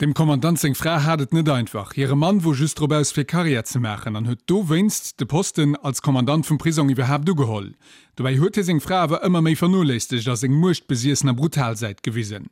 Dem Kommandant seng Fra hat et net einfach. Hire Mann wor just drop aus fir Karriär ze maachen an huet dowéinst de Posten als Kommandant vum Prisong iwwerhaapt ugeholl. Dobäi huet hie seng Fra awer ëmmer méi vernoléissegt a seng muechtbesiessner brutal Säit gewisen.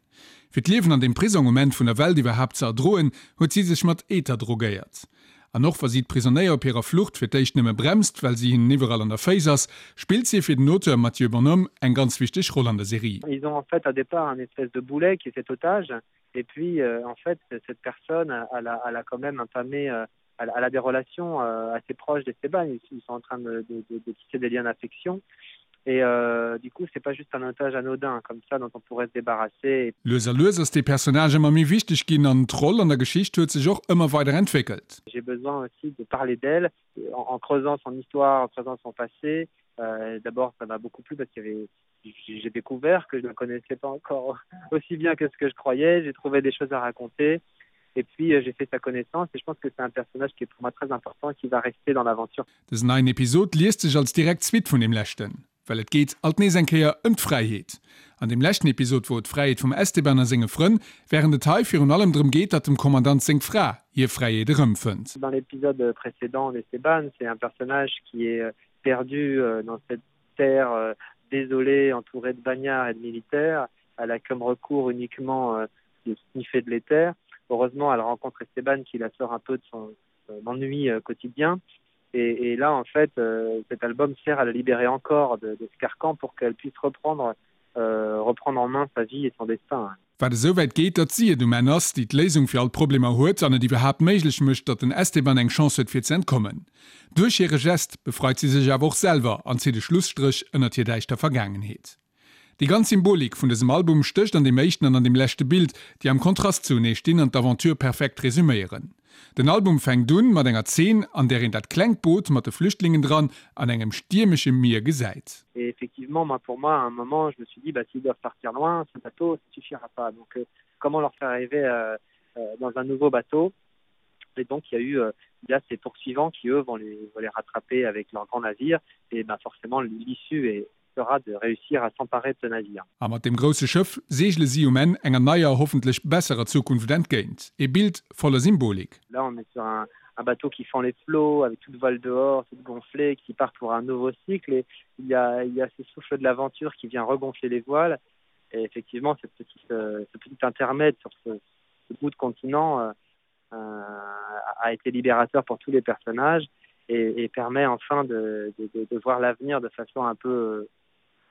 Fir d'Liewen an deem Prisong um Enn vun der Welt iwwerhaapt ze erdroen, huet si sech mat Ether drogéiert. An och wa si d'Prisonéier op hirer Flucht fir d'éischt nëmme bremst, well si hinnen iwwerall an der Féiss ass, spillt si fir den Auteur Mathieu Bonhomme eng ganz wichteg Roll an der Serie. Ils ont en fait au départ un espèce de boulet qui est cet otage et puis euh, en fait cette personne elle a, elle a quand même entamé euh, elle, elle a des relations euh, assez proches d'Esteban ils, ils sont en train de, de, de, de tisser des liens d'affection et euh, du coup c'est pas juste un otage anodin comme ça dont on pourrait se débarrasser. Lues a lues ass dee Personnage ëmmer méi wichteg ginn an d'Roll an der Geschicht huet sech och ëmmer weider entwéckelt. J'ai besoin aussi de parler d'elle en, en creusant son histoire, en creusant son passé. Euh, D'abord ça m'a beaucoup plu parce qu'il y avait j'ai découvert que je ne connaissais pas encore aussi bien que ce que je croyais, j'ai trouvé des choses à raconter et puis euh, j'ai fait sa connaissance et je pense que c'est un personnage qui est pour moi très important et qui va rester dans l'aventure. Dësen neien Episod liest sech als direkt Suite vun deem leschten, well et geet alt nees eng Kéier ëm d'Fräiheet. An deem leschten Episod wor et d'Fräiheet vum Esteban a senge Frënn, wärend et hei virun allem drëm geet, datt dem Kommandant seng Fra hir Fräiheet erëmfënnt. Dans l'épisode précédent d'Esteban, c'est un personnage qui est perdu dans cette terre désolée, entourée de bagnards et de militaires. Elle a comme recours uniquement de sniffer de l'éther. Heureusement, elle rencontre Esteban qui la sort un peu de son ennui quotidien. Et, et là, en fait, euh, cet album sert à la libérer encore de, de ce carcan pour qu'elle puisse reprendre, euh, reprendre en main sa vie et son destin. Wat esou wäit geet, datt si et um Enn ass, déi d'Léisung fir all d'Problemer huet an et iwwerhaapt méiglech mécht, datt den Esteban eng Chance huet fir ze entkommen. Duerch hire Gest befreit si sech awer och selwer an zitt e Schlusstréch ënnert hir däischter Vergaangenheet. Déi ganz Symbolik vun dësem Album stécht an deem éischten an an deem leschte Bild, déi am Kontrast zuenee stinn an d'Aventure perfekt resuméieren. Den Album fänkt un mat enger Zeen, an där een dat klengt Boot mat de Flüchtlingen dran an engem stiermesche Mier gesäit. Et effectivement, moi pour moi à un moment, je me suis dit bah s'ils doivent partir loin, ce bateau ça suffira pas. Donc euh, comment leur faire arriver euh, euh, dans un nouveau bateau Et donc il y a eu euh, il y a ces poursuivants qui eux vont les, vont les rattraper avec leur grand navire et ben forcément l'issue est sera de réussir à s'emparer de ce navire. A mat deem grousse Schëff seegele si um Enn enger neier, hoffentlech besserer Zukunft entgéint. E Bild voller Symbolik. Là on est sur un, un bateau qui fend les flots avec toute voile dehors, toute gonflée, qui part pour un nouveau cycle et il y a, il y a ce souffle de l'aventure qui vient regonfler les voiles et effectivement cette petite, euh, ce petit intermède sur ce, ce bout de continent euh, euh, a été libérateur pour tous les personnages et, et permet enfin de, de, de, de voir l'avenir de façon un peu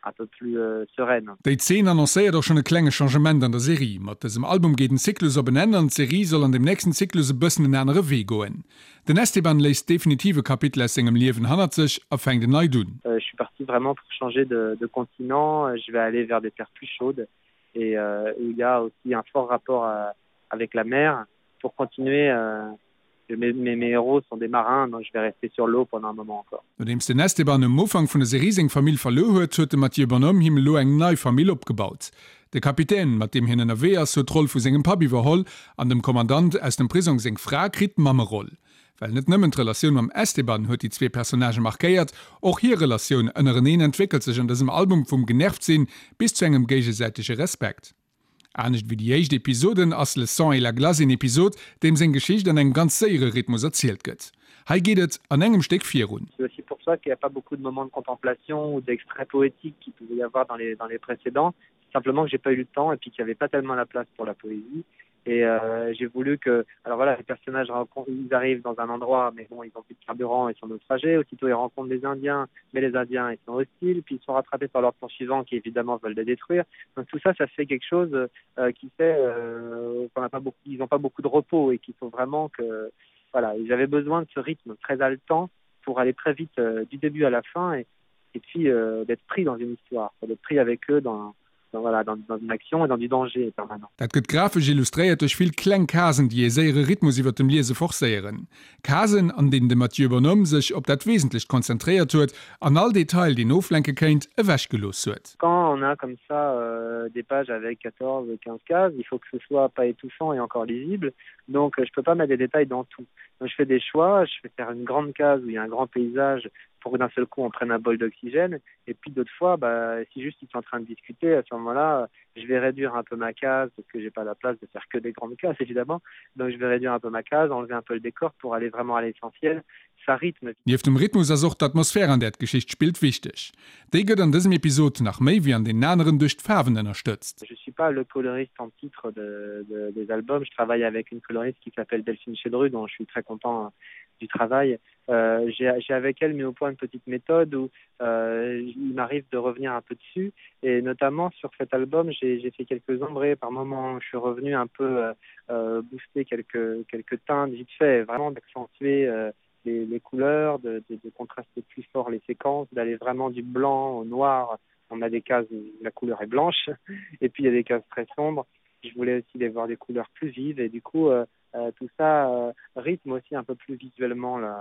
un peu plus euh, sereine. Déi Zeen annoncéiert och schonn e klenge Changement an der Serie. Mat dësem Album geet en Zyklus op en Enn an d'Serie soll an dem nächsten Zyklus e bëssen en anere Wee goen. Den Esteban léisst definitiv e Kapitel aus sengem Liewen hannert sech a fänkt en neit un. Euh, je suis parti vraiment pour changer de, de continent, je vais aller vers des terres plus chaudes et euh, où il y a aussi un fort rapport à, avec la mer pour continuer euh, mes, mes, mes héros sont des marins, donc je vais rester sur l'eau pendant un moment encore. Nodeems den Esteban um Ufank vun der Serie seng Famill verluer huet, huet de Mathieu Bonhomme him elo eng nei Famill opgebaut. De Kapitän, mat deem hien ënnerwee ass, huet d'Roll vu sengem Papp iwwerholl an dem Kommandant aus dem Prisong seng Fra kritt d'Mammeroll. Well net nëmmen d'Relatioun mam Esteban huet déi zwee Personnagë markéiert, och hir Relatioun ënnereneen entwéckelt sech an dësem Album vum Genervt-sinn bis zu engem géigesäitege Respekt. Anescht wéi déi éischt Episoden ass Le sang et la glace een Episod, deem seng Geschicht an engem ganz séiere Rhythmus erzielt gëtt. Hei geet et an engem Stéck virun. C'est aussi pour ça qu'il n'y a pas beaucoup de moments de contemplation ou d'extraits poétiques qu'il pouvait y avoir dans les, dans les précédents. Simplement que j'ai pas eu le temps et puis qu'il n'y avait pas tellement la place pour la poésie. Et euh, j'ai voulu que alors voilà les personnages rencontrent, ils arrivent dans un endroit mais bon ils ont plus de carburant ils sont naufragés aussitôt ils rencontrent des indiens mais les indiens ils sont hostiles puis ils sont rattrapés par leurs poursuivants qui évidemment veulent les détruire donc tout ça ça fait quelque chose euh, qui fait euh, qu'on n'a pas beaucoup ils n'ont pas beaucoup de repos et qu'il faut vraiment que voilà ils avaient besoin de ce rythme très haletant pour aller très vite euh, du début à la fin et, et puis euh, d'être pris dans une histoire d'être pris avec eux dans dans, voilà, dans, dans une action et dans du danger permanent. Dat gëtt grafesch illustréiert duerch vill kleng Casen, déi ee séiere Rhythmus iwwer dem Liese forcéieren. Casen, an deenen de Mathieu Bonhomme sech op dat Wesentlecht konzentréiert huet an all Detail, deen oflenke kéint, ewechgelooss huet. Quand on a comme ça euh, des pages avec 14 ou 15 cases, il faut que ce soit pas étouffant et encore lisible. Donc je peux pas mettre des détails dans tout. Donc je fais des choix, je vais faire une grande case où il y a un grand paysage. pour d'un seul coup on prenne un bol d'oxygène et puis d'autres fois bah, si juste ils sont en train de discuter à ce moment là je vais réduire un peu ma case parce que j'ai pas la place de faire que des grandes cases évidemment donc je vais réduire un peu ma case enlever un peu le décor pour aller vraiment à l'essentiel ça rythme Nieft dem Rhythmus ass och d'Atmosphär an där d'Geschicht spillt wichteg. Déi gëtt an dësem Episod nach méi wéi an deenen aneren duerch d'Faarwen ënnerstëtzt. Je suis pas le coloriste en titre de, de, des albums, je travaille avec une coloriste qui s'appelle Delphine Chedru dont je suis très content du travail. Euh, J'ai avec elle mis au point une petite méthode où euh, il m'arrive de revenir un peu dessus et notamment sur cet album j'ai fait quelques ombrés par moment je suis revenu un peu euh, euh, booster quelques quelques teintes vite fait vraiment d'accentuer euh, les, les couleurs de, de, de contraster plus fort les séquences d'aller vraiment du blanc au noir on a des cases où la couleur est blanche et puis il y a des cases très sombres je voulais aussi les voir des couleurs plus vives et du coup euh, euh, tout ça euh, rythme aussi un peu plus visuellement la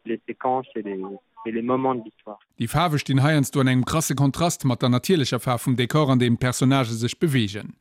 les séquences et les, et les moments de l'histoire. Déi Faarwe stinn heiansdo an engem krasse Kontrast mat der natierlecher Faarf vum Dekor an deem d'Personnagë sech beweegen.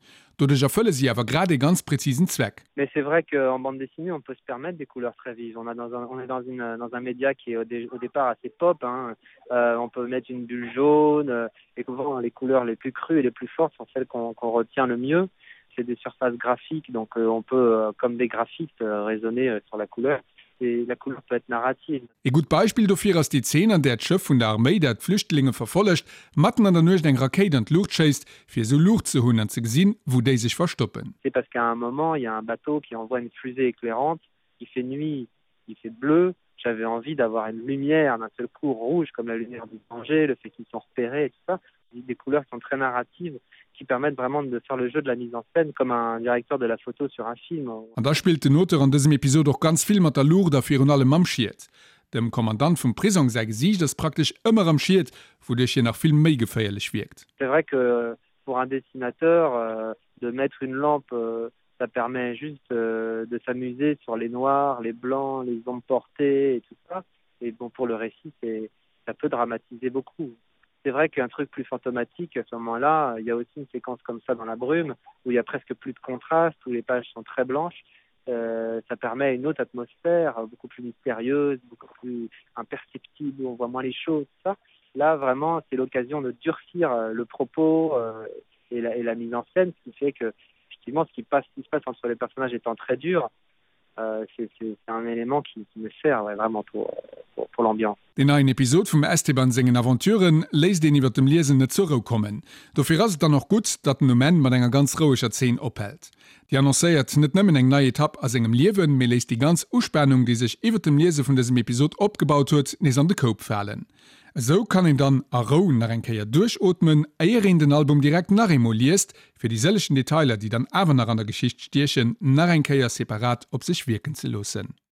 Doduerch erfëlle si awer grad ee ganz präzisen Zweck. Mais c'est vrai qu'en bande dessinée on peut se permettre des couleurs très vives. On a dans un, on est dans une, dans un média qui est au, dé, au départ assez pop hein. Euh, on peut mettre une bulle jaune euh, et souvent les couleurs les plus crues et les plus fortes sont celles qu'on qu retient le mieux. C'est des surfaces graphiques donc euh, on peut euh, comme des graphistes euh, raisonner euh, sur la couleur et la couleur peut être narrative. Ee gutt Beispill dofir ass déi Zeen, an där d'Schëff vun der Arméi, dat d'Flüchtlinge verfollegt, matten an der Nuecht eng Rakéit an d'Luucht schéisst, fir esou Luucht ze hunn an ze gesinn, wou déi sech verstoppen. C'est parce qu'à un moment, il y a un bateau qui envoie une fusée éclairante, il fait nuit, il fait bleu, j'avais envie d'avoir une lumière d'un seul coup rouge comme la lumière du danger, le fait qu'ils sont repérés et tout ça. Des couleurs qui sont très narratives, qui permettent vraiment de faire le jeu de la mise en scène comme un directeur de la photo sur un film. An da spillt den Auteur an dësem Episod och ganz vill mat der Luucht a virun allem mam Schiet. Dem Kommandant vum Prisong säi Gesiicht ass praktesch ëmmer am Schiet, wouduerch hien nach vill méi geféierlech wierkt. C'est vrai que pour un dessinateur de mettre une lampe ça permet juste de s'amuser sur les noirs, les blancs, les ombres portées et tout ça et bon pour le récit c'est ça peut dramatiser beaucoup. C'est vrai qu'un truc plus fantomatique à ce moment-là, il y a aussi une séquence comme ça dans la brume où il y a presque plus de contraste, où les pages sont très blanches. Euh, ça permet une autre atmosphère beaucoup plus mystérieuse, beaucoup plus imperceptible, où on voit moins les choses ça. Là vraiment c'est l'occasion de durcir euh, le propos euh, et, la, et la mise en scène, ce qui fait que effectivement ce qui passe ce qui se passe entre les personnages étant très dur, euh, c'est un élément qui, qui me sert ouais, vraiment pour, pour, pour l'ambiance. Deen neien Episod vum Esteban sengen Aventuren léisst een iwwer dem Liesen net zur Rou kommen. Dofir ass et dann och gutt, datt en um Enn mat enger ganz roueger Zeen ophält. Déi annoncéiert net nëmmen eng nei Etapp a sengem Liewen, mee léisst déi ganz Uspanung, déi sech iwwer dem Liese vun dësem Episod opgebaut huet, nees an de Koup falen. Esou kann een dann a Rou nach eng Kéier duerchootmen, éier een den Album direkt nach eemol liest, fir déi sëllegen Detailer, déi dann awer nach an der Geschicht stiechen, nach eng Kéier separat op sech wierken ze loossen.